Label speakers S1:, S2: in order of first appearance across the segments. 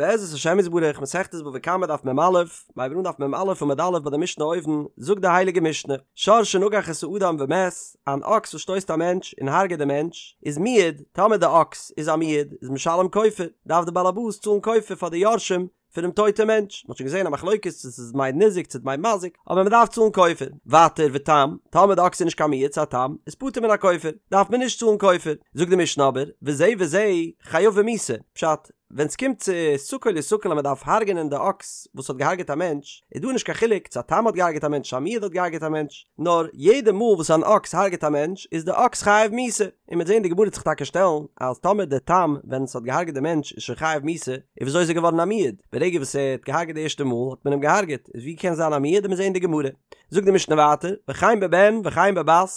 S1: בעזרת השם יתברך, מסכת בבא קמא דף מ"א, מיר הייבן אן דף מ"א עמוד א' ביי די משנה אויבן, זאגט די הייליגע משנה, שור שנגח את האדם ומת, אן אקס וואס שטויסט א מענטש און הרג'עט די מענטש, איז מועד, טאמער די אקס איז א מועד, איז משלם כופר, דארף די בעל הבית צאלן כופר פאר די יורשים פונעם טויטע מענטש, מ'האט שוין געזען א מחלוקת צו ס'איז דמי ניזק צו דמי מזיק, אבער מ'דארף צאלן כופר. ווייטער ותם, טאמער די אקס איז נישט קיין מועד ס'איז א תם, איז פטור מן הכופר, דארף מען נישט צאלן כופר. זאגט די משנה אבער, וזה וזה חייבין מיתה, פשט, ווען ס'קומט צו סקול יסקל אז מ'דארף הרג'נען די אקס וואס האט געהארגעט א מענטש, איז דא נישט קיין חילוק צו א תם האט געהארגעט א מענטש צו א מועד האט געהארגעט א מענטש, נאר יעדע מאל וואס אן אקס הארגעט א מענטש איז די אקס חייב מיתה, און מ'וועט זען די גמרא וועט זיך טאקע שטעלן אז טאמער די תם ווען ס'האט געהארגעט די מענטש איז שוין חייב מיתה, איז וויאזוי איז ער געווארן א מועד? ברגע וואס ער האט געהארגעט די ערשטע מאל האט מען אים געהארגעט, איז ווי קען זיין א מועד? וועט מען זען די גמרא. זאגט די משנה ווייטער, וכן בבן וכן בבת,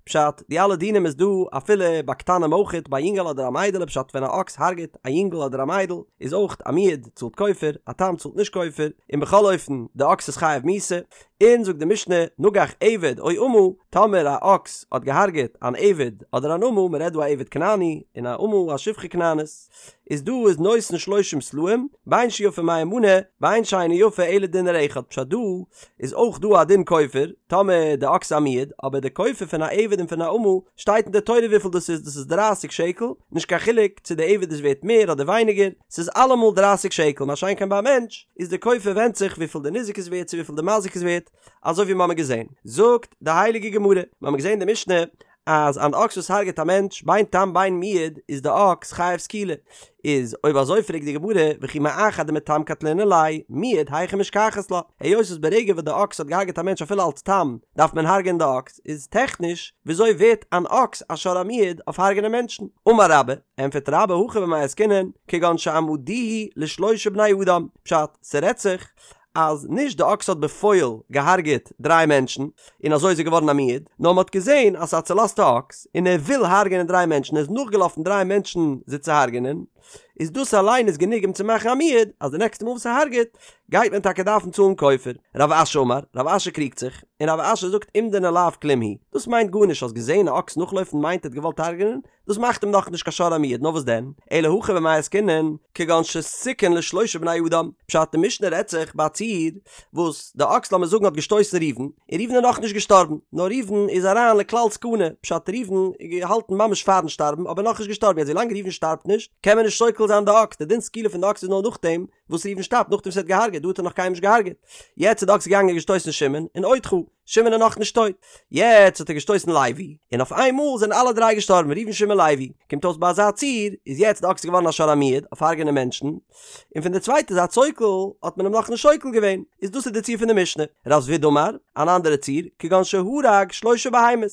S1: פשט, די אלע דינים איז דא אפילו ביי קטנים אויכעט, ביי א יונגעל אדער א מיידעלע, פשט ווען א אקס הארגעט א יונגעל אדער א מיידל איז אויך א מועד צאלט כופר, א תם צאלט נישט כופר, און בכל אופן די אקס איז חייב מיתה, און זאגט די משנה, נגח עבד או אמה, טאמער א אקס האט געהארגעט אן עבד אדער אן אמה, מען רעדט דא א עבד כנעני און א אמה א שפחה כנענית, איז דא איז נותן שלושים סלעים, בין שיפה מאה מנה, בין שאינה יפה אלא דינר אחד, פשט דא איז אויך דא א דין כופר, טאמער די אקס איז א מועד, אבער די כופר פון א עבד און פון א אמה שטייט אין די תורה וויפיל דאס איז, דאס איז דרייסיג שקל, נישט קיין חילוק צו די עבד איז ווערט מער אדער ווייניגער, ס'איז אלעמאל דרייסיג שקל, מה שאין כן ביי א מענטש איז די כופר ווענדט זיך וויפיל די ניזק איז ווערט צו וויפיל די מזיק איז ווערט, אזוי ווי מ'האמיר געזען. זאגט די הייליגע גמרא, מ'האמיר געזען די משנה אז אן אקס וואס הרג'עט א מענטש בין תם בין מועד איז די אקס חייב סקילה, איז אויב אזוי פרעגט די גמרא וכי מאחר דמתם קטלינן ליה מועד היכי משכחת לה, היות וואס ברגע וואס די אקס האט געהארגעט א מענטש אפילו אלץ תם דארף מען הרג'ענען די אקס, איז טעכניש וויאזוי ווערט אן אקס א שור המועד אויף הרג'ענען מענטשן? אמר רבה, ענטפערט רבה הכא במאי עסקינן כגון שאמדוהו לשלושה בני אדם, פשט, ס'רעדט זיך אז נישט די אקס האט בפועל געהארגעט דריי מענטשן און אזוי איז ער געווארן א מועד, נאר מ'האט געזען אז ס'איז א צולאזטע אקס און ער וויל הרג'ענען דריי מענטשן, ער איז נאכגעלאפן דריי מענטשן זיי צו הרג'ענען, איז דאס אליין איז גענוג אים צו מאכן א מועד, אז די נעקסטע מאל וואס ער הרג'עט גייט מען טאקע דארפן צאלן כופר. רב אשי אמר, רב אשי קריגט זיך, און רב אשי זאגט אומדנא לאו כלום הוא, דאס מיינט גארנישט, האסט געזען א אקס נאכלויפן מיינט ער האט געוואלט הרג'ענען, דאס מאכט אים נאכנישט קיין שור המועד, נאר וואס דען? אלא הכא במאי עסקינן, כגון שסיכן לשלושה בני אדם, פשט די משנה רעדט זיך ביי א ציור וואס די אקס לאמיר זאגן האט געשטויסן ראובן, און ראובן איז נאכנישט געשטארבן, נאר ראובן איז אריין לכלל סכנה, פשט ראובן איז געהאלטן ממש פארן שטארבן אבער נאכנישט געשטארבן, יעצט ווילאנג ראובן שטארבט נישט קען מען נישט סוקל זיין די אקס, די דין סקילה פון די אקס איז נאר נאכדעם וואס ראובן שטארבט, נאכדעם וואס ער האט געהארגעט, דא האט ער נאך קיינעם נישט געהארגעט, יעצט איז די אקס געגאנגען און געשטויסן שמעון, און עוד חי. שמעון איז נאך נישט טויט. יעצט האט ער געשטויסן לוי, און אויף איין מאל זענען אלע דריי געשטארבן, ראובן שמעון לוי. קומט אויס ביי אזא ציור, איז יעצט די אקס געווארן א שור המועד, אויף הרג'נען מענטשן, און פון די צווייטע זייט סוקל האט מען אים נאכנישט סוקל געווען, איז דאס איז די ציור פון די משנה. רב זביד אמר, אן אנדערע ציור, כגון שהרג שלושה בהמות.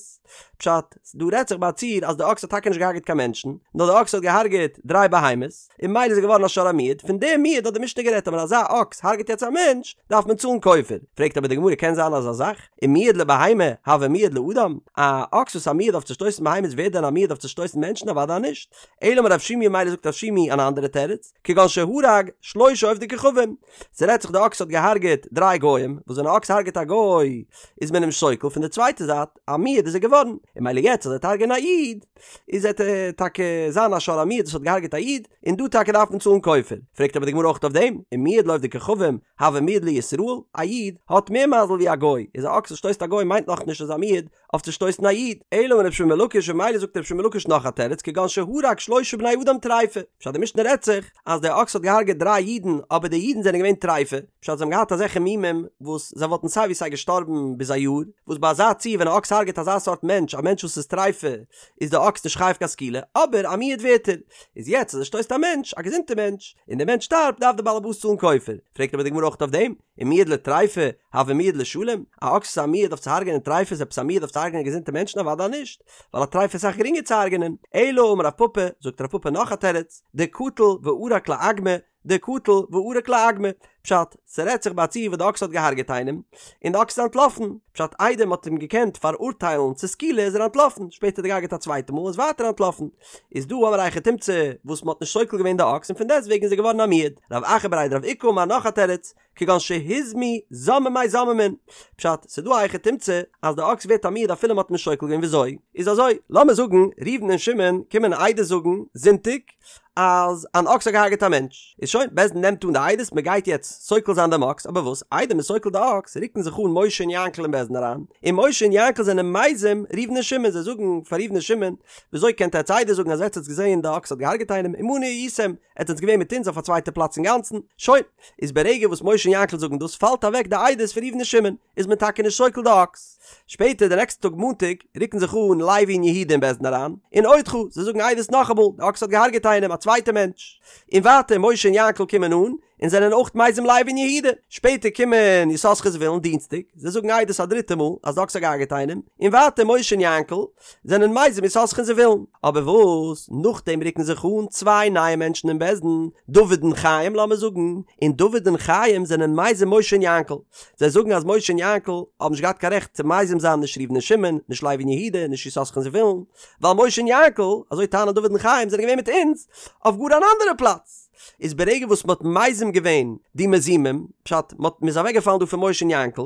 S1: פשט, דא רעדט זיך ביי א ציור אז די אקס האט טאקע נישט געהארגעט קיין מענטשן, נאר די אקס האט געהארגעט דריי בהמות, און ממילא איז ער געווארן א שור המועד, פון דעם מועד האט די משנה גערעדט אז ווען אזא אקס הרג'ט יעצט א מענטש, דארף מען צאלן כופר. פרעגט אבער די גמרא קען זיין אזא זאך? ומועד לבהמה הוי מועד לאדם? א אקס וואס איז א מועד אויף צו שטויסן בהמות ווערט דען א מועד אויף צו שטויסן מענטשן? אוודאי נישט. אלא אמר רב שימי ממילא זאגט רב שימי אן אנדערע תירוץ, כגון שהרג שלושה עובדי כוכבים, ס'רעדט זיך די אקס האט געהארגעט דריי גוים, וואס ווען א אקס הרג'ט א גוי איז מען אים סוקל, פון די צווייטע זייט א מועד איז ער געווארן, און ממילא יעצט אז ער וועט הרג'ענען א איד, איז עט ער טאקע זיין א שור המועד וואס האט געהארגעט א איד, און דא טאקע דארף מען צאלן כופר. פרעגט אבער די גמרא אויך אויף דעם, ומועד לעובדי כוכבים, הוי מועד לישראל, א איד האט מער מזל ווי א גוי, איז א אקס וואס שטויסט א גוי מיינט נאכנישט אז א מועד אויף צו שטויסן א איד, אלא אמר רבי שמעון בן לקיש ממילא זאגט רבי שמעון בן לקיש נאך א תירוץ כגון שהרג שלושה בני אדם טריפה, פשט די משנה רעדט זיך אז דער אקס האט געהארגעט דריי אידן אבער די אידן זענען געווען טריפה, פשט זיי האבן געהאט אזעלכע מומים וואס זיי וואלטן סיי ווי סיי געשטארבן ביז א יאר, וואס ביי אזא ציור ווען א אקס הארגעט אזא סארט מענטש א מענטש וואס איז טריפה איז די אקס נישט חייב קיין סקילה אבער א מועד ווערט ער, איז יעצט אז ער שטויסט א מענטש א געזונטע מענטש און דער מענטש שטארבט דארף דער בעל הבית צאלן כופר, פרעגט אבער די גמרא אויך אויף דעם, ומועד לטריפה, הוי מועד לשלם, א אקס איז א מועד אויף צו הרג'ענען טריפות איז עפעס א מועד אויף צו הרג'ענען געזונטע מענטשן? אוודאי נישט, ווייל א טריפה איז אסאך גרינגער צו הרג'ענען. אלא אמר רב פפא, זאגט רב פפא נאך א תירוץ, דקטל וערק לאגמא, דקטל וערק לאגמא. פשט, ס'רעדט זיך ביי א ציור וואס די אקס האט געהארגעט איינעם, און די אקס איז אנטלאפן, פשט איידער מ'האט אים געקענט פאראורטיילן צו סקילה איז ער אנטלאפן, שפעטער האט ער געהארגעט א צווייטע מאל איז ווייטער אנטלאפן, איז דא האמיר א היכי תמצא וואס מ'האט נישט סוקל געווען די אקס און פון דעסט וועגן איז ער געווארן א מועד. רב אחא בריה דרב איקא אמר נאך א תירוץ, כגון שהוזמו זוממי זוממין, פשט, ס'דא א היכי תמצא אז די אקס ווערט א מועד אפילו מ'האט נישט סוקל געווען וויאזוי? איז אזוי, לאמיר זאגן ראובן און שמעון קומען עדות זאגן זונטאג אז אן אקס האט געהארגעט א מענטש, איז שוין, בית דין נעמט אן די עדות מ'גייט יעצט סוקל זיין דעם אקס, אבער וואס איידער מ'סוקלט די אקס רוקן זיך אן משה און יענקל אין בית דין אריין, און משה און יענקל זענען מזים ראובן און שמעון, זיי זאגן פאר ראובן און שמעון, וויאזוי קענט עטץ עדות זאגן אז עטץ האטס געזען די אקס האט געהארגעט איינעם, עמנו הייתם, עטץ זענטס געווען מיט אונז אויף א צווייטע פלאץ אינגאנצן, שוין, איז ברגע וואס משה און יענקל זאגן דאס פאלט אוועק די עדות פון ראובן און שמעון, איז מען טאקע נישט סוקל די אקס. שפעטער די נעקסטע טאג מאנטאג רוקן זיך אן לוי און יהודה אין בית דין אריין, און אודך, זיי זאגן עדות נאכאמאל, די אקס האט געהארגעט איינעם, א צווייטע מענטש. און ווייטער משה און יענקל קומען אן, און זענען אויך מזים לוי און יהודה. שפעטער קומען יששכר זבולון דינסטאג, זיי זאגן עדות א דריטע מאל אז די אקס האט געהארגעט איינעם, און ווייטער משה און יענקל זענען מזים יששכר און זבולון. אבער וואס נאכדעם רוקן זיך אן צוויי נייע מענטשן אין בית דין, דוד און חיים לאמיר זאגן, און דוד און חיים זענען מזים משה און יענקל. זיי זאגן אז משה און יענקל האבן נישט געהאט קיין רעכט צו מזים זיין נישט ראובן און שמעון, נישט לוי און יהודה, נישט יששכר און זבולון, ווייל משה און יענקל, אזוי טענה'ן דוד און חיים, זענען געווען מיט אונז אויף גאר אן אנדערע פלאץ. איז ברגע וואס מ'האט מזים געווען די מזימים, פשט, מ'האט מ'איז אוועקגעפאלן דא פון משה און יענקל,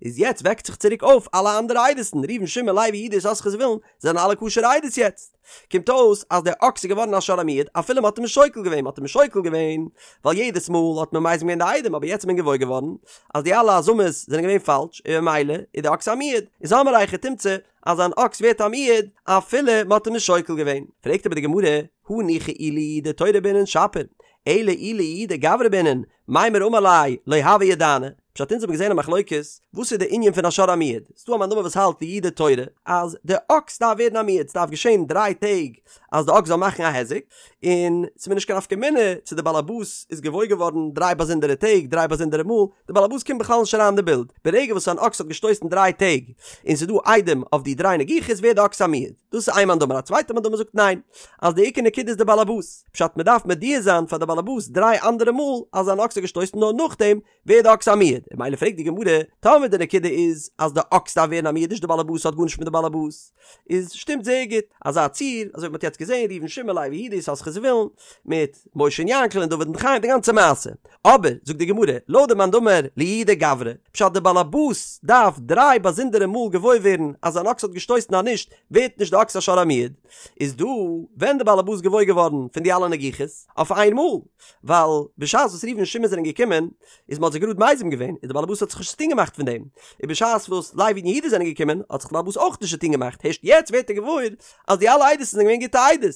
S1: איז יעצט וועקט זיך צוריק אויף אלע אנדערע עדות'ן, ראובן שמעון לוי יהודה יששכר זבולון, זענען אלע כשר'ע עדות יעצט. קומט אויס אז דער אקס איז געווארן א שור המועד אפילו מ'האט אים נישט שוקל געווען, מ'האט אים נישט שוקל געווען ווייל יעדעס מאל האט מען מזים געווען די עדים אבער יעצט איז מען געוואויר געווארן אז די אלע הזמות זענען געווען פאלש און ממילא איז די אקס א מועד, איז האמיר א היכי תמצא אז אן אקס ווערט א מועד אפילו מ'האט אים נישט שוקל געווען. פרעגט אבער די גמרא, הניחא אי לייעודי תורא בעינן שפיר, אלא אי לייעודי גברא בעינן, מימר אמר ליה לא הוה ידענא, פשט אונז האבן געזען א מחלוקת, וואס איז די ענין פון א שור המועד, ס'דא א מאן דאמר וואס האלט לייעודי תורא, אז די אקס דארף ווערן א מועד, ס'דארף געשען דריי טעג אז די אקס זאל מאכן א היזק, און ס'איז מיר נישט קיין נפקא מינה צו די באלעבאס איז געוואויר געווארן דריי באזונדערע טעג, דריי באזונדערע מאל, די באלעבאס קומט בכלל נישט אריין אין די בילד, ברגע וואס אן אקס האט געשטויסן דריי טעג, און ס'איז דא עדים אויף די דריי נגיחות ווערט די אקס א מועד. דאס איז איין מאן דאמר, א צווייטע מאן דאמר זאגט ניין, אז די עיקר נקודה איז די באלעבאס, פשט מ'דארף מודיע זיין פאר די באלעבאס דריי אנדערע מאל אז אן אקס האט געשטויסן נאר נאכדעם ווערט די אקס א מועד, און ממילא פרעגט די גמרא, טאמער די נקודה איז אז די אקס דארף ווערן א מועד נישט די באלעבאס האט גארנישט מיט די באלעבאס, איז שטימט זייער גוט אזא ציור, אזוי ווי מ'האט יעצט געזען ראובן שמעון לוי יהודה יששכר זבולון, מיט משה און יענקל און דוד און חיים די גאנצע מעשה. אבער, זאגט די גמרא, לויט די מאן דאמר לייעודי גברא, פשט די באלעבאס דארף דריי באזונדערע מאל געוואויר ווערן אז אן אקס האט געשטויסן אז נישט ווערט נישט די אקס א שור המועד, איז דא ווען די באלעבאס געוואויר געווארן פון די אלע נגיחות אויף איין מאל, ווייל בשעת וואס ראובן און שמעון זענען געקומען איז מ'האט זיי גראד מזים געווען, און די באלעבאס האט זיך נישט צוטון געמאכט פון דעם, און בשעת וואס לוי און יהודה זענען געקומען האט זיך די באלעבאס אויך נישט צוטון געמאכט, הערשט יעצט ווערט ער געוואויר אז די אלע עדות זענען געווען גוטע עדות,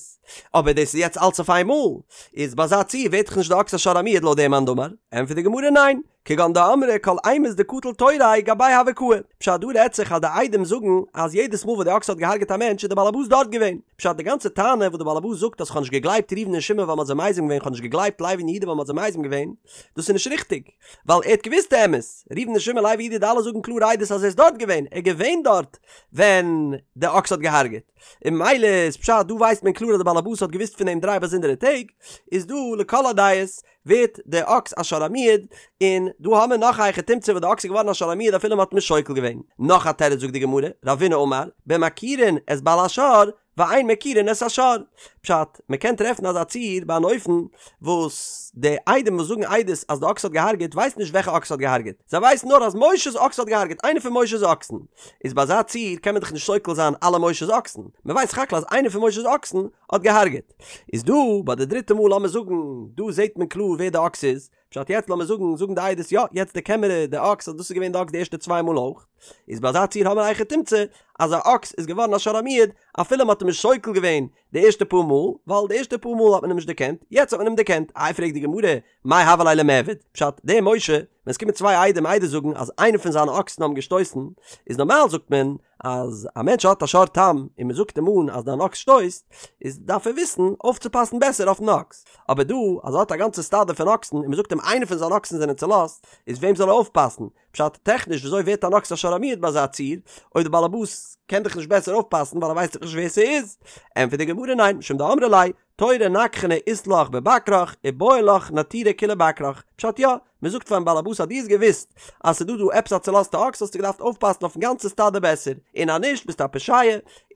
S1: אבער דאס איז יעצט אלץ אויף איין מאל, איז ביי אזא ציור ווערט דאך נישט די אקס א שור המועד לויט דעם מאן דאמר, ענטפערט די גמרא ניין, כגון דאמרי כל אימת דקטל תוריה גביה הוה קאי, פשט דא רעדט זיך אז די עדים זאגן אז יעדעס מאל וואס די אקס האט געהארגעט א מענטש איז די באלעבאס דארט געווען, פשט די גאנצע טענה וואס די באלעבאס זאגט אז כ'האב נישט געגלייבט ראובן און שמעון ווייל מ'האט זיי מזים געווען כ'האב נישט געגלייבט לוי און יהודה ווייל מ'האט זיי מזים געווען, דאס איז נישט ריכטיג, ווייל ער האט געוואוסט די אמת, ראובן און שמעון לוי יהודה די אלע זאגן קלאר עדות אז ער איז דארט געווען, ער איז געווען דארט ווען די אקס האט געהארגעט, און ממילא איז פשט דא ווייסט מען קלאר אז די באלעבאס האט געוואוסט פון דעם דריי באזונדערע טעג, איז דא לכל הדעות ווערט די אקס א שור המועד, און דא האמיר נאך א היכי תמצא וואס די אקס איז געווארן א שור המועד אפילו מ'האט נישט שוקל געווען. נאך א תירוץ זאגט די גמרא, רבינא אמר, במכירין את בעל השור, ואין מכירין את השור. פשט, מ'קען טרעפן אזא ציור ביי אן אופן וואס די עדים וואס זאגן עדות אז די אקס האט געהארגעט ווייסן נישט וועלכע אקס האט געהארגעט, זיי ווייסן נאר אז משה'ס אקס האט געהארגעט, איינער פון משה'ס אקסן. איז ביי אזא ציור קען מען דאך נישט שוקל זיין אלע משה'ס אקסן, מ'ווייסט סך הכל אז איינער פון משה'ס אקסן האט געהארגעט. איז דא ביי די דריטע מאל לאמיר זאגן דא זעהט מען קלאר ווער די אקס איז, פשט יעצט לאמיר זאגן זאגן די עדות יא יעצט דערקען מיר די אקס אז דאס איז געווען די אקס די ערשטע צוויי מאל אויך, איז ביי אזא ציור האמיר א היכי תמצא אז א אקס איז געווארן א שור המועד אפילו מ'האט אים נישט שוקל געווען די ערשטע פאר מאל, ווייל די ערשטע פאר מאל האט מען אים נישט דערקענט, יעצט האט מען אים דערקענט, איי פרעגט די גמרא, מאי הוה ליה למיעבד, פשט, דער משה, ווען עס קומען צוויי עדים עדות זאגן אז איינער פון זיינע אקסן האבן געשטויסן, איז נארמאל זאגט מען אז א מענטש האט א שור תם און מען זאגט אים אן אז דיין אקס שטויסט, איז דארף ער וויסן אויפצופאסן בעסער אויפן אקס, אבער דא אז ער האט א גאנצע סטאדע פון אקסן און מען זאגט אים איינער פון זיינע אקסן זענען צולאזט, איז וועם זאל ער אויפפאסן? פשט, טעכניש וויאזוי ווערט אן אקס א שור המועד ביי אזא ציור, אויב די בעלעבאס קען דאך נישט בעסער אויפפאסן ווייל ער ווייסט דאך נישט ווער ס'איז? ענטפערט די גמרא ניין, משום דאמרי ליה, תורא נגחנא אית לך בבקרך ובעי לך נטורי כוליה בקרך, פשט יא, מען זאגט פארן באלעבאס אז דו האסט געוואוסט אז ס'איז דא דא עפעס א צולאזטע אקס האסטו געדארפט אויפפאסן אויפן גאנצע סטאדע בעסער, און אז נישט ביסטו א פושע,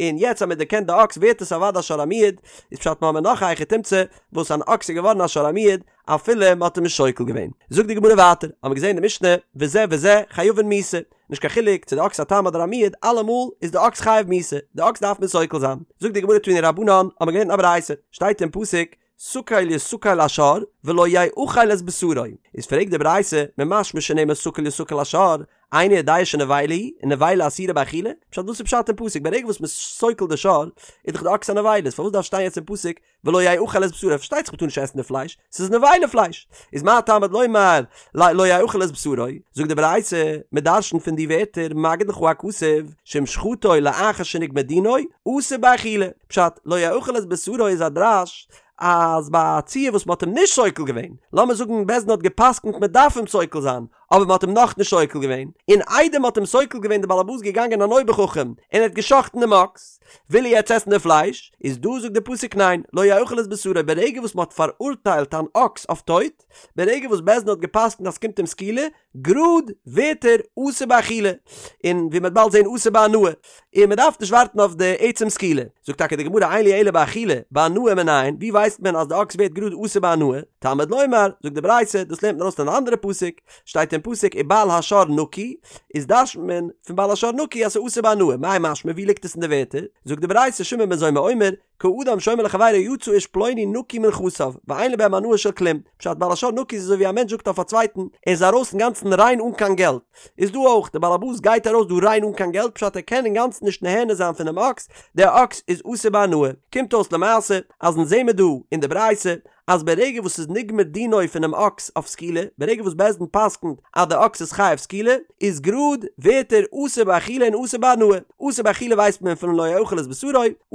S1: און יעצט אז מען דערקענט די אקס ווערט עס אוודאי א שור המועד, איז פשט מ'האמיר נאך א היכי תמצא וואס אן אקס איז געווארן א שור המועד אפילו מען האט אים נישט סוקל געווען. זאגט די גמרא ווייטער, האמיר געזען אין די משנה וזה וזה חייבין מיתה, נישט קיין חילוק צו די אקס א תם אדער א מועד אלעמאל איז די אקס חייב מיתה, די אקס דארף מען סוקל זיין. זאגט די גמרא תנו רבנן, האמיר געלערנט אין א ברייתא, שטייט אין פסוק סקול יסקל השור ולא יאכל את בשרו, איז פרעגט די ברייתא, ממשמע שנאמר סקול יסקל השור, איני יודע שנבילה היא, ונבילה אסורה באכילה? פשט וואס איז פשט אין פסוק ברגע וואס מ'איז סוקל די שור איז דאך די אקס א נבילה איז פארוואס דארף שטיין יעצט אין פסוק ולא יאכל את בשרו פארשטייט זיך מ'טאר נישט עסן די פלייש ס'איז נבילה פלייש איז מה תלמוד לומר לא יאכל את בשרו זאגט די ברייתא מ'דרש'נט פון די ווערטער מגיד לך הכתוב שאם שחטו לאחר שנגמר דינו אסור באכילה פשט לא יאכל את בשרו איז א דרש אז ביי א ציור וואס מ'האט אים נישט סוקל געווען לאמיר זאגן בית דין האט גע'פסק'נט מ'דארף אים סוקל זיין אבער מ'האט אים נאכנישט סוקל געווען, און איידער מ'האט אים סוקל געווען די באלעבאס געגאנגען אן אויבער חכם און ער האט גע'שחט'ן דעם אקס, וויל ער יעצט עסן די פלייש, איז דא זאגט די פסוק ניין, לא יאכל את בשרו, ברגע וואס מ'האט פאראורטיילט אן אקס אויף טויט, ברגע וואס בית דין האט גע'פסק'נט אז ס'קומט אים סקילה, גראד ווערט ער אסור באכילה, און ווי מ'וועט באלד זען אסור בהנאה, און מ'דארף נישט ווארטן אויף די עצם סקילה. זאגט טאקע די גמרא אין לי אלא באכילה, בהנאה מנין, ווי ווייסט מען אז די אקס ווערט גראד אסור בהנאה? תלמוד לומר, זאגט די ברייתא, דאס לערנט מען ארויס פון אן אנדערע פסוק, שטייט אין פסוק ובעל השור נקי, איז דרש'נט מען פון בעל השור נקי אז ס'איז אסור בהנאה, מאי משמע ווי ליגט עס אין די ווערטער? זאגט די ברייתא שמעון בן זומא אומר, כאדם שאומר לחבירו יצא איש פלוני נקי מנכסיו, ואין לו בהם הנאה של כלום, פשט בעל השור נקי איז אזוי ווי א מענטש זאגט אויף א צווייטן, ער איז ארויס אינגאנצן ריין אן קיין געלט, איז דא אויך, דער בעל הבית גייט ארויס דא ריין אן קיין געלט פשט ער קען אינגאנצן נישט נהנה זיין פונעם אקס, דער אקס איז אסור בהנאה, קומט אויס למעשה אז אונז זעמער דא אין די ברייתא אז ברגע וואס ס'איז נגמר דינו פונעם אקס אויף סקילה, ברגע וואס בית דין פסק'נט אז דער אקס איז חייב סקילה, איז גראד ווערט ער אסור באכילה און אסור בהנאה, אסור באכילה ווייסט מען פון לא יאכל את בשרו,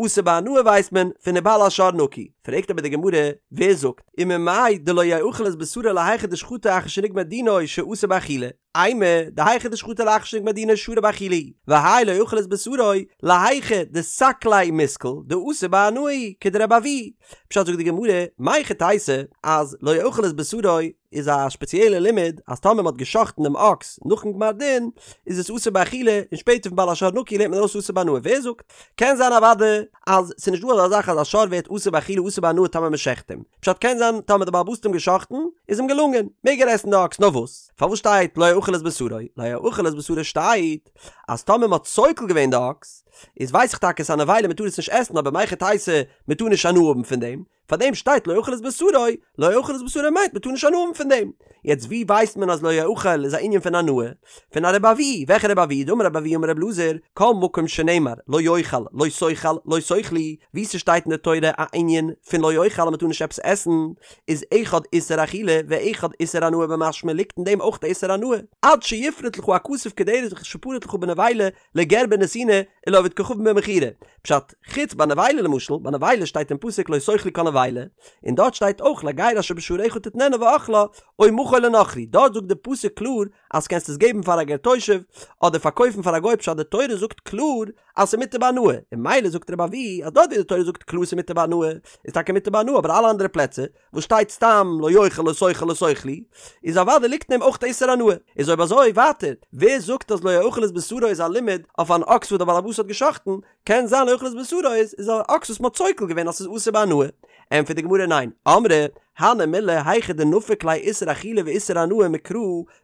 S1: אסור בהנאה ווייסט מען פון ובעל השור נקי. פרעגט אבער די גמרא, ווער זאגט, וממאי דלא יאכל את בשרו להיכא דשחטו אחר שנגמר דינו שאסור באכילה? אימא, דהיכא דשחטו לאחר שנגמר דינו שרי באכילה הוא, והאי לא יאכל את בשרו, להיכא דסקליה מיסקל, דאסור בהנאה הוא, כדרבי אבהו. פשט זאגט די גמרא, מהיכי תיתי, אז לא יאכל את בשרו איז א שפעציעלע לימוד אז טאמער מ'האט גע'שחט'ן דעם אקס נאכן גמר דין איז עס אסור באכילה און שפעטער פון בעל השור נקי לערנט מען ארויס אסור בהנאה ווער זאגט? קען זיין אוודאי אז ס'איז נישט דא אזא זאך אז א שור ווערט אסור באכילה אסור בהנאה טאמער מ'שחט אים. פשט קען זיין טאמער די בעל הבית האט אים גע'שחט'ן איז אים געלונגען מעג ער עסן די אקס נאר וואס? פארוואס שטייט לא יאכל את בשרו? לא יאכל את בשרו שטייט אז טאמער מ'האט סוקל געווען די אקס איז ווייס איך טאקע ס'איז א נבילה מ'טאר עס נישט עסן אבער מהיכי תיתי מ'טאר נישט הנאה האבן פון דעם פאר דעם שטייט לא יאכל את בשרו, לא יאכל את בשרו מיינט מ'טאר נישט הנאה האבן פון דעם. יעצט ווי ווייסט מען אז לא יאכל איז א ענין פון הנאה? פון א רבי אבהו, וועלכע רבי אבהו? דאמר רבי אבהו אמר רבי אלעזר, כל מקום שנאמר לא יאכל, לא תאכל, לא תאכלו, ווי ס'שטייט אין די תורה א ענין פון לא יאכל אז מ'טאר נישט עפעס עסן, איז אחד איסור אכילה ואחד איסור הנאה במשמע ליגט אין דעם אויך די איסור הנאה, עד שיפרוט לך הכתוב כדרך שפרט לך בנבילה לגר בנתינה ולעובד כוכבים במכירה. פשט, חוץ ביי נבילה למשל, ביי נבילה שטייט אין פסוק לא תאכלו כל נבילה, און דארט שטייט אויך לגר אשר בשעריך תתננה ואכלה, או מכור לנכרי, דארט זאגט די פסוק קלאר אז קענסט עס געבן פאר א גר תושב, אדער פארקויפן פאר א גוי פשט די תורה זאגט קלאר אז ס'איז מותר בהנאה, און ממילא זאגט רבי אבהו אז דארט ווי די תורה זאגט קלאר ס'איז מותר בהנאה, איז טאקע מותר בהנאה אבער אלע אנדערע פלעצער וואס שטייט סתם לא יאכל לא תאכל לא תאכלו, איז אוודאי ליגט אין דעם אויך איסור הנאה. איז אויב אזוי ווייטער, ווער זאגט אז לא יאכל את בשרו איז א לימוד אויף אן אקס וואס דער בעל הבית האט גע'שחט'ן, קען זיין לא יאכל את בשרו איז איז א אקס וואס מ'האט סוקל געווען אז ס'איז אסור בהנאה. ענטפערט די גמרא ניין, אמרי, הני מילי היכא דנפיק ליה איסור אכילה ואיסור הנאה מקרא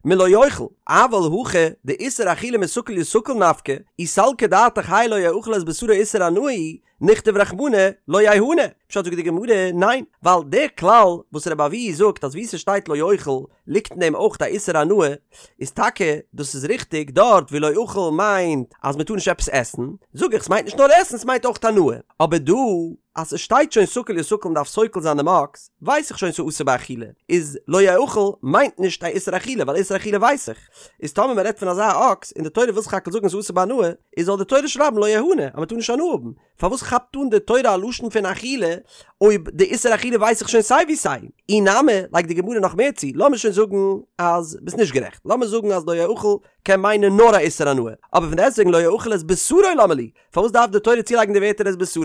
S1: מלא יאכל, אבל הכא דאיסור אכילה מסקל יסקל נפקא, אי סלקא דעתך האי לא יאכל את בשרו איסור הנאה הוא, נכתוב רחמנא לא יהנה, פשט זאגט די גמרא, ניין, ווייל דער כלל וואס רבי אבהו זאגט אז וואו ס'שטייט לא יאכל ליגט אין דעם אויך א איסור הנאה, איז טאקע דאס איז ריכטיג דארט ווי לא יאכל מיינט אז מ'טאר נישט עפעס עסן, זאג איך ס'מיינט נישט נאר עסן ס'מיינט אויך הנאה, אבער דא אז ס'שטייט שוין סקול יסקל מ'דארף סוקל זיין דעם אקס, ווייס איך. שוין ס'איז אסור באכילה, איז לא יאכל מיינט נישט א איסור אכילה ווייל איסור אכילה ווייס איך, איז טאמער מ'רעדט פון אזא אקס און די תורה וויל סך הכל זאגן ס'איז אסור בהנאה, איז זאל די תורה שרייבן לא יהנה אז מ'טאר נישט הנאה האבן, פארוואס כאפט אן די תורה א לשון פון אכילה אויב די איסור אכילה ווייס איך שוין סיי ווי סיי? אי נמי, לייגט די גמרא נאך מער צו, לאמיר שוין זאגן אז ביסט נישט גערעכט, לאמיר זאגן אז לא יאכל קען מיינען נאר א איסור הנאה, אבער פון דעסטוועגן לא יאכל את בשרו למה לי, פארוואס דארף די תורה צולייגן די ווערטער את בשרו?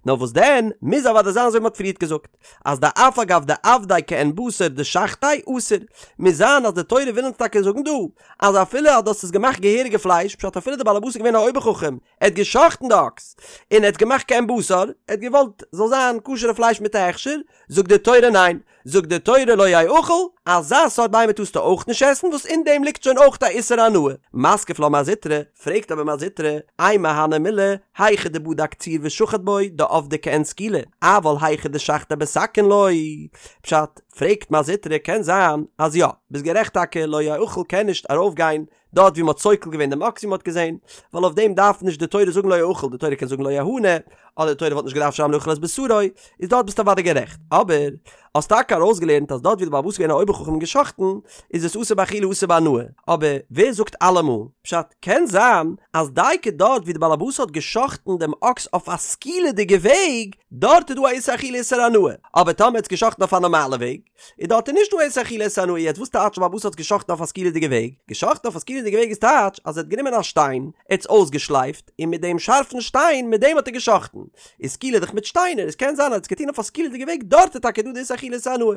S1: נאר וואס דען, מוז אוודאי זיין אזוי ווי מ'האט פריערט געזאגט, אז דאף על גב דעבדיה כעין בשר דשחטיה אסור, מוז זיין אז די תורה וויל אונז טאקע זאגן דא, אז אפילו אז דו האסט עס געמאכט געהעריגע פלייש, פשט אפילו די בעל הבית איז געווען א אויבער חכם, ער האט גע'שחט'ן די אקס, און ער האט געמאכט כעין בשר, ער האט געוואלט זאל זיין כשר'ע פלייש מיט א הכשר, זאגט די תורה ניין, זאגט די תורה לא יאכל, אזא סארט בהמה טארסטו אויך נישט עסן וואס אין דעם ליגט שוין אויך א איסור הנאה. מתקיף לה מר זוטרא, פרעגט אבער מר זוטרא, אימא הני מילי, היכא דבדק צור ושחט בו, דעבדיה כעין סקילה, אבל היכא דשחטיה בסכין לא. פשט, פרעגט מר זוטרא, קען זיין אז יא, ביסט גערעכט טאקע לא יאכל קען נישט ארויפגיין דארט ווי מ'האט סוקל געווען דעם אקס ווי מ'האט געזען, ווייל אויף דעם דארף נישט די תורה זאגן לא יאכל, די תורה קען זאגן לא יהנה, אדער די תורה וואלט נישט געדארפט שרייבן לא יאכל את בשרו, איז דארט ביסטו אוודאי גערעכט. אבער, האסט טאקע ארויסגעלערנט אז דארט ווי די בעל הבית איז געווען א אויבער חכם און גע'שחט'ן, איז עס אסור באכילה אסור בהנאה. אבער, ווער זאגט אלעמאל? פשט, קען זיין אז דייקא דארט ווי די בעל הבית האט גע'שחט'ן דעם אקס אויף א סקילה'דיגע וועג, דארט איז דא א איסור אכילה איסור הנאה. אבער טאמער האט עס גע'שחט'ן אויף א נארמאלע וועג, איז דארט איז נישט דא איסור אכילה איסור הנאה יעצט וואס טייטש בעל הבית האט געשחט'ן אויף א סקילה'דיגע וועג? געשחט'ן אויף א סקילה'דיגע וועג איז טייטש אז ער האט גענומען א שטיין, ער האט עס אויסגעשלייפט, און מיט דעם שארפן שטיין מיט דעם האט ער געשחט'ן. איז סקילה דאך מיט שטיינער, עס קען זיין אז ער האט עס געטון אויף א סקילה'דיגע וועג דארט איז טאקע דא די איסור אכילה איסור הנאה.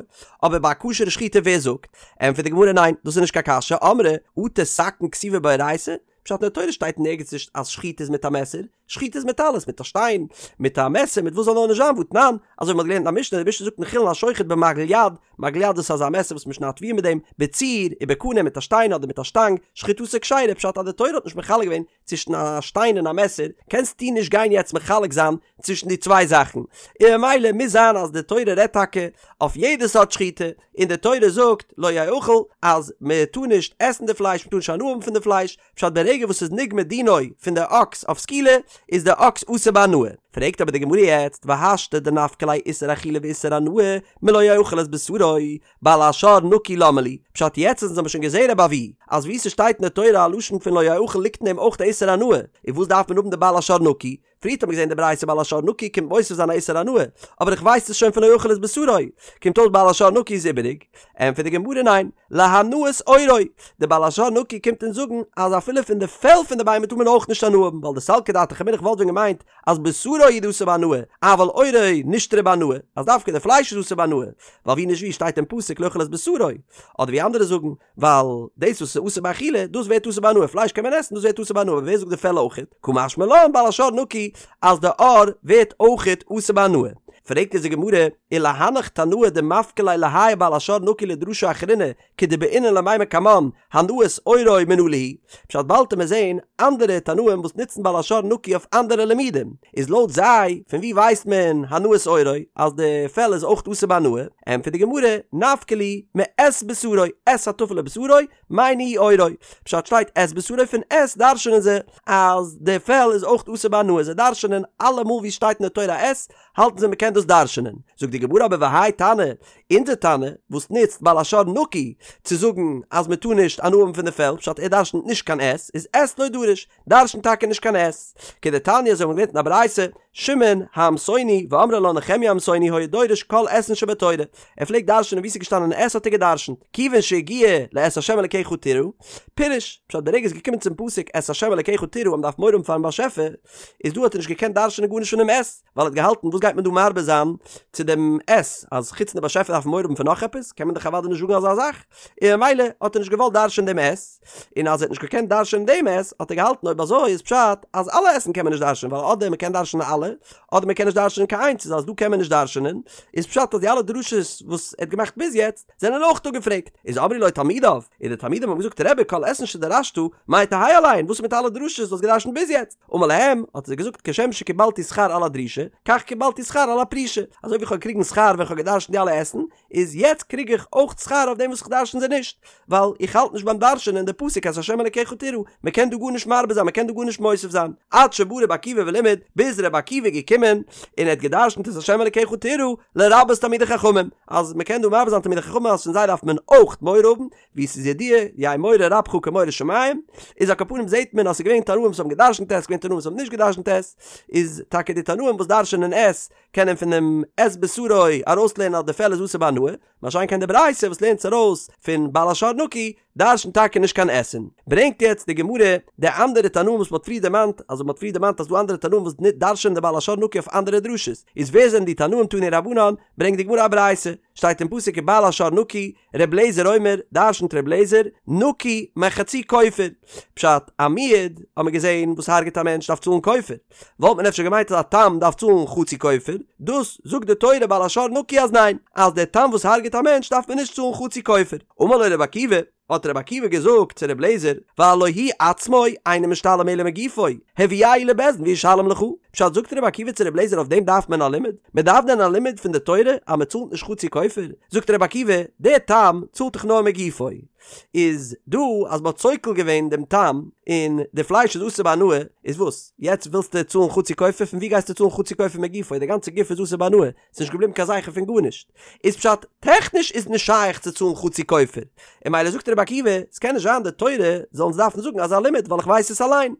S1: אבער ביי א כשר'ע שחיטה ווער זאגט? ענטפערט די גמרא ניין דאס איז נישט קיין קשיא אמרי אטו סכין כתיבא באורייתא? פשט אין די תורה שטייט נערגעץ נישט אז שחיטה איז מיט א מעסער, שחיטה איז מיט אלעס, מיט א שטיין, מיט א מעסער, מיט וואס זאל נאר נישט זיין, והתנן, אזוי ווי מ'האט געלערנט אין א משנה, די משנה זאגט אין חולין השוחט במגל יד, מגל יד דאס איז אזא מעסער וואס מ'שניידט תבואה מיט דעם, בצור, ובקנה מיט א שטיין אדער מיט א שטאנג, שחיטתו כשרה, פשט אז די תורה האט נישט מחלק געווען צווישן א שטיין און א מעסער, קענסטו נישט גיין יעצט מחלק זיין צווישן די צוויי זאכן, און ממילא מוז זיין אז די תורה רעדט טאקע אויף יעדע סארט שחיטה, און די תורה זאגט לא יאכל אז מען טאר נישט עסן די פלייש, מען טאר נישט הנאה האבן פון די פלייש, פשט ברגע וואס ס'איז נגמר דינו פון די אקס אויף סקילה איז די אקס אסור בהנאה. פרעגט אבער די גמרא יעצט והשתא דנפקא ליה איסור אכילה ואיסור הנאה מלא יאכל את בשרו בעל השור נקי למה לי, פשט יעצט אז אונז האבן שוין געזעהן רבי אבהו אז וואו ס'שטייט אין די תורה א לשון פון לא יאכל ליגט אין דעם אויך די איסור הנאה, און וואס דארף מען האבן די בעל השור נקי? פריערט האט מען געזען די ברייתא בעל השור נקי קומט מוסיף זיין א איסור הנאה, אבער איך ווייס עס שוין פון לא יאכל את בשרו, קומט אויס בעל השור נקי איז איבעריג, ענטפערט די גמרא ניין, להנאת עורו, די בעל השור נקי קומט אונז זאגן אז אפילו פון די פעל פון די בהמה טאר מען אויך נישט הנאה האבן, ווייל דסלקא דעתך אמינא איך וואלט ווען געמיינט אז בשרו הוא דאסור בהנאה, אבל עורו נשתרי בהנאה, אז דווקא די פלייש איז אסור בהנאה, ווייל ווי נישט ווי שטייט אין פסוק לא יאכל את בשרו, אדער ווי אנדערע זאגן, ווייל דאס וואס איז אסור באכילה, דאס ווערט אסור בהנאה, פלייש קען מען עסן, דאס ווערט אסור בהנאה, אבער ווער זאגט די פעל אויכעט? קא משמע לן בעל השור נקי אז די עור ווערט אויכעט אסור בהנאה. פרעגט אונז די גמרא, ולהנך תנאי דמפקי ליה להאי בעל השור נקי לדרשה אחרינא כדבעינן למימר קמן הנאת עורו מנא להו, פשט באלד וועט מען זעהן אנדערע תנאים וואס נוצן בעל השור נקי אויף אנדערע לימודים, איז לויט זיי פון ווי ווייסט מען הנאת עורו אז די פעל איז אויך אסור בהנאה? ענטפערט די גמרא, נפקא להו מאת בשרו, את הטפל לבשרו, מאי ניהו עורו, פשט שטייט את בשרו פון את דרש'נען זיי אז די פעל איז אויך אסור בהנאה, זיי דרש'נען אלעמאל ווי שטייט אין די תורה את האלטן זיי מ'קען דאס דרש'נען, זאגט די גמרא אבער והאי תנא, אונזער תנא וואס נוצט בעל השור נקי צו זאגן אז מ'טאר נישט הנאה האבן פון די פעל, פשט ער דרש'נט נישט קיין את, איז את לא דריש, דרש'נט טאקע נישט קיין את. כדתניא אזוי האבן מיר געלערנט אין א ברייתא, שמעון העמסוני ואמרי לה נחמיה העמסוני היה דורש כל אתין שבתורה, ער פלעגט דרש'נען וואו ס'איז געשטאנען את האט ער געדרש'נט, כיוון שהגיע לאת ה' אלקיך תירא, פירש, פשט ברגע ס'איז געקומען צום פסוק את ה' אלקיך תירא אז מ'דארף מורא האבן פארן באשעפער, איז דא האט ער נישט געקענט דרש'נען גארנישט פונעם את, ווייל ער האט געהאלטן וואס גייט מען דא מרבה זיין צו דעם את, אז חוץ פון די באשעפער דארף מען מורא האבן פון נאך עפעס, קען מען דאך אוודאי נישט זאגן אזא זאך, און ממילא האט ער נישט געוואלט דרש'ען דעם את, און אז ער האט נישט געקענט דרש'ענען דעם את, האט ער געהאלטן אויב אזוי איז פשט אז אלע את'ן קען מען נישט דרש'ענען, ווייל אדער מען קען דרש'ענען אלע, אדער מען קען נישט דרש'ענען קיין איינס, איז אז דא קען מען נישט דרש'ענען, איז פשט אז די אלע דרשות וואס ער האט געמאכט ביז יעצט, זענען אויך אפגעפרעגט. איז אמרו לו תלמידיו, און די תלמידים האבן געזאגט רבי כל אתין שדרשת, מאי תהא עליהן, וואס איז מיט אלע דרשות וואס האסט געדרש'נט ביז יעצט? אמר להם, האט ער זיי געזאגט כשם שקיבלתי שכר על הדרישה, כך קיבלתי שכר על הפרישה, אזוי ווי איך האב געקריגן שכר ווען איך האב געדרש'נט די אלע את'ן, איז יעצט קריג איך אויך שכר אויף דעם וואס איך דרשן זיי נישט, ווייל איך האלט נישט ביים דרש'ענען די פסוק את ה' אלקיך תירא, מען קען דא גארנישט מרבה זיין, מען קען דא גארנישט מוסיף זיין, עד שבא רבי עקיבא ולימד, ביז רבי עקיבא איז געקומען און ער האט געדרשנט את ה' אלקיך תירא לרבות תלמידי חכמים, אז מען קען דא מרבה זיין תלמידי חכמים אז פון זיי דארף מען אויך מורא האבן, ווי עס איז ידוע, יהא מורא רבך כמורא שמים, איז על כל פנים זעט מען אז עס איז געווען תנאים וואס האבן געדרשנט את, עס איז געווען תנאים וואס האבן נישט געדרשנט את, איז טאקע די תנאים וואס דרשנען את, קענען פונעם את בשרו ארויסלערנען אז די פעל איז אסור בהנאה, מה שאין כן די ברייתא וואס לערנט עס ארויס פון בעל השור נקי, דרשנט טאקע נישט קיין אתין. ברענגט יעצט די גמרא די אנדערע תנאים וואס מ'האט פריער דערמאנט, אז מ'האט פריער דערמאנט אז ס'דא אנדערע תנאים וואס דרש'ענען די בעל השור נקי אויף אנדערע דרשות, איז ווער זענען די תנאים תנו רבנן, ברענגט די גמרא א ברייתא, שטייט אין פסוק ובעל השור נקי, ר' לעזער אומר, דרשנט ר' לעזער, נקי מחצי כופר. פשט, א מועד, האט מען געזען, וואס הרג'ט א מענטש דארף צאלן כופר. וואלט מען אפשר געמיינט אז א תם דארף צאלן חצי כופר, דאס זאגט די תורה בעל השור נקי אז ניין, אז דער תם וואס הרג'ט א מענטש דארף מען נישט צאלן חצי כופר. אמר לו רבי עקיבא, האט רבי עקיבא געזאגט צו רבי אליעזר, והלא הוא עצמו אינו משתלם אלא מגופו, הביאהו לבית דין וישלם לך. פשט זאגט רבי עקיבא צו רבי אליעזר אויף דעם דארף מען א לימוד? מען דארף דען א לימוד פון די תורה אז מען צאלט נישט חצי כופר? זאגט רבי עקיבא, דער תם צאלט דאך נאר מגופו. איז דא אז מ'האט סוקל געווען דעם תם און די פלייש איז אסור בהנאה, איז וואס? יעצט ווילסטו צאלן חצי כופר? פון ווי גייסטו צאלן חצי כופר מגופו? די גאנצע גוף איז אסור בהנאה, ס'איז נישט געבליבן קיין זכר פון גארנישט. איז פשט, טעכניש איז נישט שייך צו צאלן חצי כופר. און ממילא זאגט רבי עקיבא, ס'קען נישט זיין די תורה זאל אונז דארפן זאגן אזא לימוד ווייל איך ווייס עס אליין.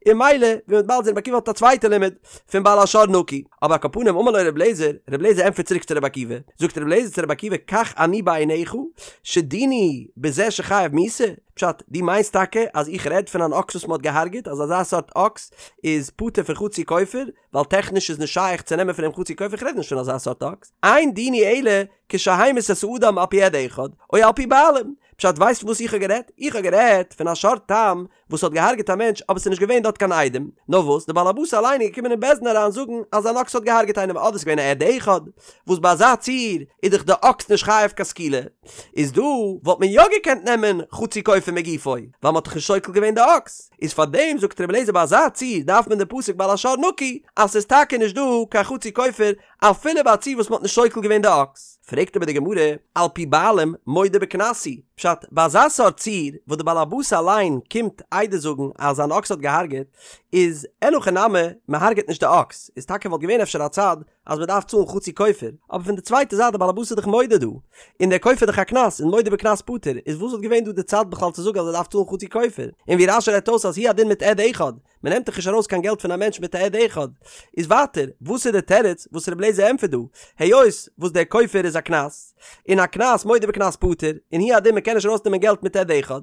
S1: און ממילא ווי מ'וועט באלד זען רבי עקיבא האט א צווייטע לימוד פון בעל השור נקי. אבער על כל פנים אמר לו רבי אליעזר, רבי אליעזר ענטפערט צוריק צו רבי עקיבא, זאגט רבי אליעזר צו רבי עקיבא כך אני בעיניך שדיני בזה שחייב מיתה? פשט, דו מיינסט טאקע אז איך רעד פון אן אקס וואס מ'האט געהארגעט אז אזא סארט אקס איז פטור פון חצי כופר ווייל טעכניש איז נישט שייך צו נעמען פון אים חצי כופר איך רעד נישט פון אזא סארט אקס, אין דיני אלא כשהמית את האדם על פי עד אחד או על פי בעלים, פשט ווייסט וואס איך האב גערעדט? איך האב גערעדט פון א שור תם וואס האט געהארגעט א מענטש אבער ס'איז נישט געווען דארט קיין עדים, נאר וואס די באלעבאס אליין איז געקומען אין בית דין אריין זאגן אז אן אקס האט געהארגעט איינעם אדער ס'איז געווען א עד אחד, וואס ביי אזא ציור איז דאך די אקס נישט חייב קיין סקילה, איז דא וואלט מען יא געקענט נעמען חצי כופר מגופו, ווייל מ'האט דאך נישט סוקל געווען די אקס, איז פארדעם זאגט רבי אליעזר ביי אזא ציור דארף מען די פסוק בעל השור נקי אז ס'איז טאקע נישט דא קיין חצי כופר אפילו ביי א ציור וואס מ'האט נישט סוקל געווען די אקס. פרעגט אבער די גמרא, על פי בעלים מודה בקנס הוא, פשט, ביי אזא סארט ציור וואס די בעל הבית אליין קומט עדות זאגן אז זיין אקס האט געהארגעט, איז אין הכי נמי, מ'הארגעט נישט די אקס, איז טאקע וואלט געווען אפשר א צד אז מ'דארף צאלן חצי כופר, אבער פון די צווייטע זייט די בעל הבית איז דאך מודה דא, און דער כופר איז דאך א קנס, און מודה בקנס פטור, איז וואס וואלט געווען דא די צד בכלל צו זאגן אז ער דארף צאלן חצי כופר? און ווי רש"י רעדט אויס אז הוא הדין מיט עד אחד, מען נעמט דאך נישט ארויס קיין געלט פון א מענטש מיט א עד אחד. איז ווייטער, וואס איז די תירוץ וואס רבי אליעזר ענטפערט דא? היות וואס דער כופר איז א קנס, און א קנס מודה בקנס פטור, און הוא הדין מען קען נישט ארויסנעמען געלט מיט עד אחד,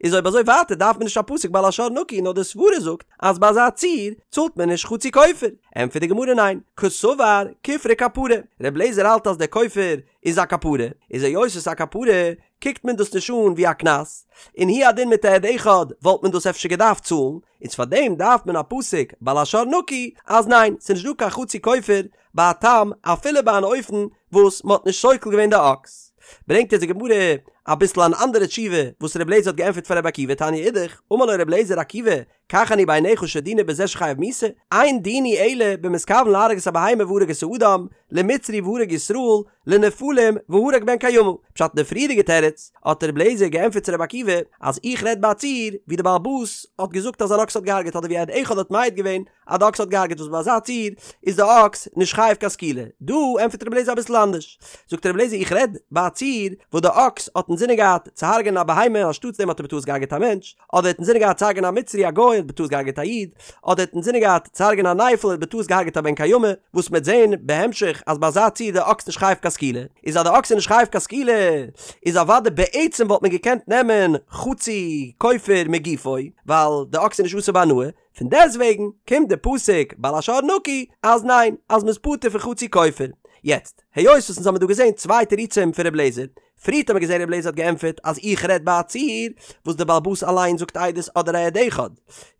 S1: איז אויב אזוי ווייטער דארף מען נישט א פסוק בעל השור נקי נאר די סברה זאגט אז ביי אזא ציור צאלט מען נישט חצי כופר. ענטפערט די גמרא ניין, קסבר כופרא כפרה, רבי אליעזר האלט אז דער כופר איז א כפרה, איז היות עס איז א כפרה קוקט מען דאס נישט אן ווי א קנס, און הוא הדין מיט א עד אחד וואלט מען דאס אפשר געדארפט צאלן, איז פאר דעם דארף מען א פסוק בעל השור נקי אז ניין ס'איז נישט דא קיין חצי כופר ביי א תם אפילו ביי אן אופן וואס מ'האט נישט סוקל געווען די אקס. ברענגט אונז די גמרא אביסל אן אנדערע תשובה וואס ר' אליעזר האט געענטפערט פאר ר' עקיבא תניא אידך, אמר לו ר' אליעזר עקיבא כך אני בעיניך שדיני בזה שחייב מיתה, אין דיני אלא במתכוון להרוג את הבהמה והרג את האדם, למצרי והרג ישראל, לנפלים והרג בן קיימא. פשט אין די פריערדיגע תירוץ האט ר' אליעזר געענטפערט צו ר' עקיבא אז איך רעד ביי א ציור ווי די בעל הבית האט געזאגט אז אן אקס האט געהארגעט אדער ווי עד אחד האט מעיד געווען אז די אקס האט געהארגעט וואס ביי אזא ציור איז די אקס נישט חייב קיין סקילה. דא ענטפערט ר' אליעזר אביסל אנדערש. זאגט ר' אליעזר איך רעד ביי א ציור וואס די אקס האט אינזינען געהאט צו הרג'ענען א בהמה אנשטאטס דעם האט ער בטעות געהארגעט א מענטש, אדער האט אינזינען געהאט צו הרג'ענען א מצרי א גוי האט בטעות געהארגעט א איד, אדער האט אינזינען געהאט צו הרג'ענען א נפל האט בטעות געהארגעט א בן קיימא, וואס מ'עט זעהן בהמשך אז ביי אזא ציור די אקס נישט חייב קיין סקילה, איז אז די אקס איז נישט חייב קיין סקילה איז אוודאי בעצם וואלט מען געקענט נעמען חצי כופר מגופו ווייל די אקס איז נישט אסור בהנאה, פון דעסטוועגן קומט די פסוק בעל השור נקי אז ניין אז מ'איז פטור פון חצי כופר. יעצט, היות וואס אונז האמיר דא געזעהן צוויי תירוצים פון ר' אליעזר, פריערט האט מען געזען רבי אליעזר האט געענטפערט אז איך רעד ביי א ציור וואס די בעל הבית אליין זאגט עדות אדער א עד אחד.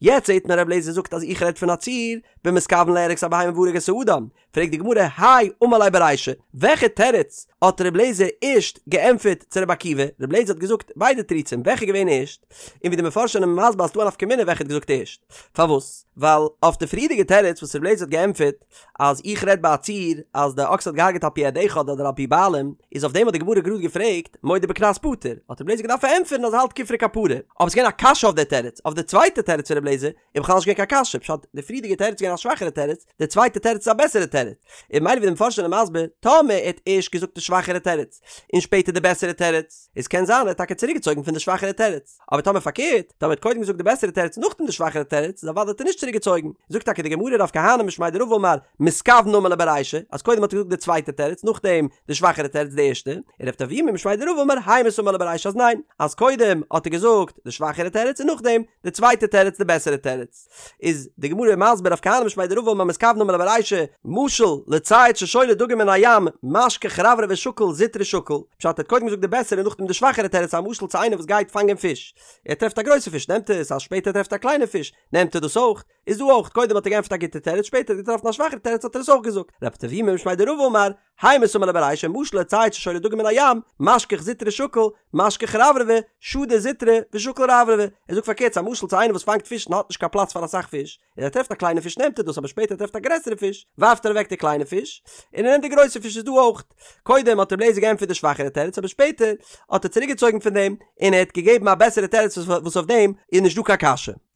S1: יעצט זעט מען רבי אליעזר זאגט אז איך רעד פון א ציור במתכוין להרוג את הבהמה והרג את האדם. פרעגט די גמרא, הי אמר ליה ברישא, וועלכע תירוץ האט ר' לעזער ערשט געענטפערט צו ר' עקיבא? ר' לעזער האט געזאגט ביידע תירוצים, וועלכע איז געווען ערשט? און ווי די מפרשים זענען מסביר אז ס'דא א נפקא מינה וועלכע האט געזאגט ערשט. פארוואס? ווייל אויף די פריערדיגע תירוץ וואס ר' לעזער האט געענטפערט אז איך רעד ביי א ציור אז די אקס האט געהארגעט על פי עד אחד אדער על פי בעלים, איז אויף דעם האט די גמרא גראד געפרעגט מודה בקנס פטור, האט ר' לעזער געדארפט פארענטפערן אז ער האלט כופרא כפרה. אבער ס'איז געווען א קשיא אויף די תירוץ, אויף די צווייטע תירוץ פון ר' לעזער איז בכלל נישט געווען קיין קשיא, פשט, די פריערדיגע תירוץ איז געווען א שוואכערע תירוץ, די צווייטע תירוץ איז א בעסערע תירוץ. און ממילא ווי די מפרשים זענען מסביר, טאמער ער האט ערשט געזאגט די שוואכערע תירוץ, און שפעטער די בעסערע תירוץ, איז קען זיין ער האט טאקע צוריקגעצויגן פון די שוואכערע תירוץ. אבער טאמער פארקערט, טאמער ער האט קודם געזאגט די בעסערע תירוץ נאכדעם די שוואכערע תירוץ, איז אוודאי האט ער נישט צוריקגעצויגן. זאגט טאקע די גמרא רב כהנא משמיה דרבא אמר, מתכוון אמר ליה ברישא, אז קודם האט ער געזאגט די צווייטע תירוץ נאכדעם די שוואכערע תירוץ די ערשטע, און רב טביומי משמיה דרבא אמר המית אמר ליה ברישא אז ניין, אז קודם האט ער געזאגט די שוואכערע תירוץ און נאכדעם די צווייטע תירוץ די בעסערע תירוץ. איז די גמרא מסביר רב כהנא משמיה דרבא אמר מתכוון אמר ליה ברישא, משל לצייד ששולה דגים מן הים משכח רברבי שקיל זוטרי שקיל, פשט ער האט קודם געזאגט די בעסערע און נאכדעם די שוואכערע תירוץ א משל צו איינער וואס גייט פאנגען פיש, ער טרעפט א גרויסע פיש נעמט ער עס, אז שפעטער טרעפט ער א קליינע פיש נעמט ער דאס אויך, איז דא אויך, קודם האט ער געענטפערט א גוטע תירוץ שפעטער האט ער געטראפן א שוואכערע תירוץ האט ער עס אויך געזאגט, רב טביומי משמיה דרבא אמר, המית אמר ליה ברישא משל לצייד ששולה דגים מן הים, משכח זוטרי שקיל, משכח רברבי, שדי זוטרי, ושקיל רברבי. ער זאגט פארקערט ס'איז א משל צו איינער וואס פאנגט פיש און האט נישט קיין פלאץ פאר אסאך פיש, און ער טרעפט א קליינע פיש נעמט ער דאס אבער שפעטער טרעפט א גרעסערע פיש, ווארפט ער אוועק די קליינע פיש, און ער נעמט די גרויסע פיש איז דא אויך. קודם האט רבי אליעזר געענטפערט די שוואכערע תירוץ אבער שפעטער האט ער צוריקגעצויגן פון דעם און ער האט געגעבן א בעסערע תירוץ וואס אויף דעם איז נישט דא קיין קשיא.